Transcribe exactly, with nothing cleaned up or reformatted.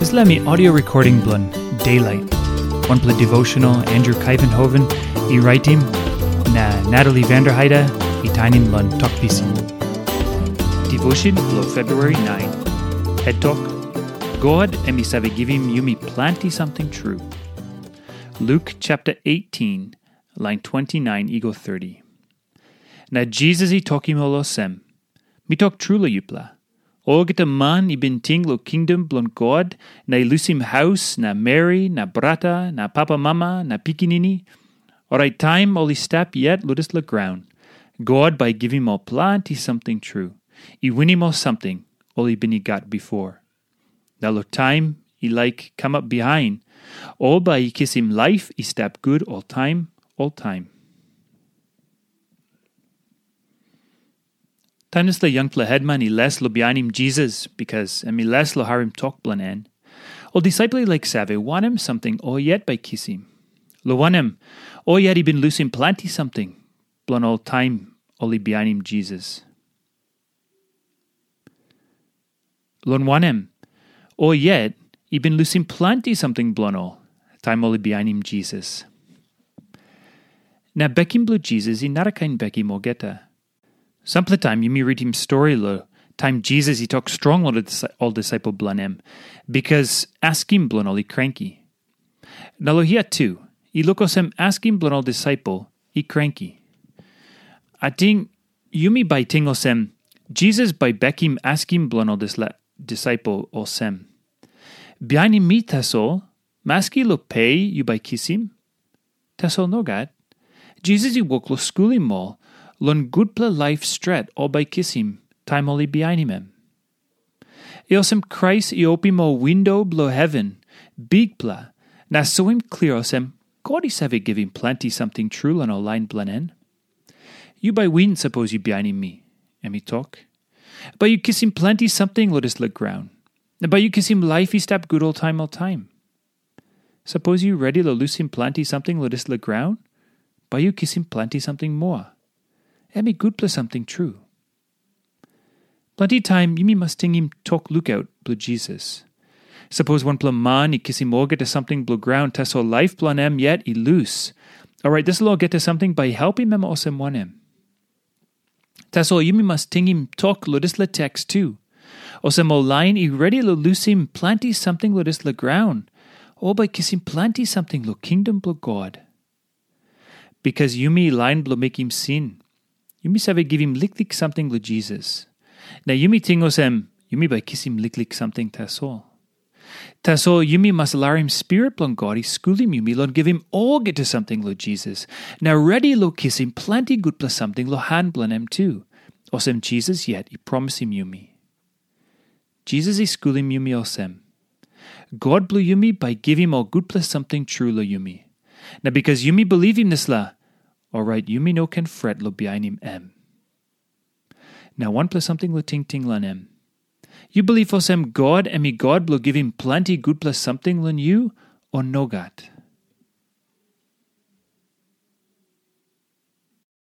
Dispela mi audio recording bilong Daylight, wanpela devotional Andrew Kaivenhoven i raitim, na Natalie Vanderheide i tainim long Tok Pisin. Devotion bilong February nine. Het tok, God em i save givim yumi planti samting tru. Luke chapter eighteen, line twenty-nine i go thirty. Na Jisas i tokim ol olsem, "Mi tok tru long yupela, olgeta man i bin ting long kingdom bilong God na i lusim haus na meri na brata na papamama na pikinini, orait taim ol i stap yet long dispela graun, God bai i givim ol planti samting tru, i winim ol samting ol i bin i gat bipo. Na long taim i laik kamap bihain, ol bai i kisim laip i stap gut oltaim, oltaim." Taim dispela yangpela hetman i les long bihainim Jisas bikas em i les long harim tok bilong en, ol disaipel i laik save wanem samting ol yet bai kisim. Long wanem, ol yet i bin lusim planti samting bilong ol taim ol i bihainim Jisas. Long wanem, ol yet i bin lusim planti samting bilong ol taim ol i bihainim Jisas. Na bekim bilong Jisas i narakain bekim olgeta. Sampela taim yumi ritim stori long taim Jisas i tok strong long ol dis-, ol disaipel bilong em, bikas askim bilong ol i kranki. Na long hia tu, i luk olsem askim bilong ol disaipel i kranki. Ating yumi bai ting olsem, Jisas bai bekim askim bilong ol dispela disaipel olsem, "Bihainim mi tasol, maski long pe yu bai kisim?" Tasol nogat. Jisas i wok long skulim ol long gutpela laip stret ol bai kisim taim ol i bihainim em. I olsem Krais i opim ol windo bilong heven bikpela na soim klia olsem God i save givim planti samting tru long ol lain bilong en. "Yu bai win sapos yu bihainim mi," em i tok. "Bai yu kisim planti samting long dispela graun. Na bai yu kisim laip i stap gut oltaim oltaim. Sapos yu redi long lusim planti samting long dispela graun, bai yu kisim planti samting moa. Em i gutpela samting tru." Planti taim yumi mas tingim tok lukaut bilong Jisas. Sapos wanpela man i kisim olgeta samting bilong graun, tasol laip bilong em yet i lus, orait dispela olgeta samting bai i helpim em olsem wanem? Tasol yumi mas tingim tok long dispela teks tu. Olsem ol lain i redi long lusim planti samting long dispela graun, ol bai kisim planti samting long kingdom bilong God. Bikas yumi lain bilong mekim sin, yumi save givim liklik samting long Jisas. Na yumi ting olsem, yumi bai kisim liklik samting tasol. Tasol yumi mas larim Spirit bilong God i skulim yumi long givim olgeta samting long Jisas, na redi long kisim planti gutpela samting long han bilong em tu, olsem Jisas yet i promisim yumi. Jisas i skulim yumi olsem, God bilong yumi bai givim ol gutpela samting tru long yumi. Na bikas yumi bilivim dispela, orait yumi no ken fret long bihainim em. Na wanpela samting long tingting long em. Yu bilip olsem God em i God bilong givim planti gutpela samting long yu, o nogat?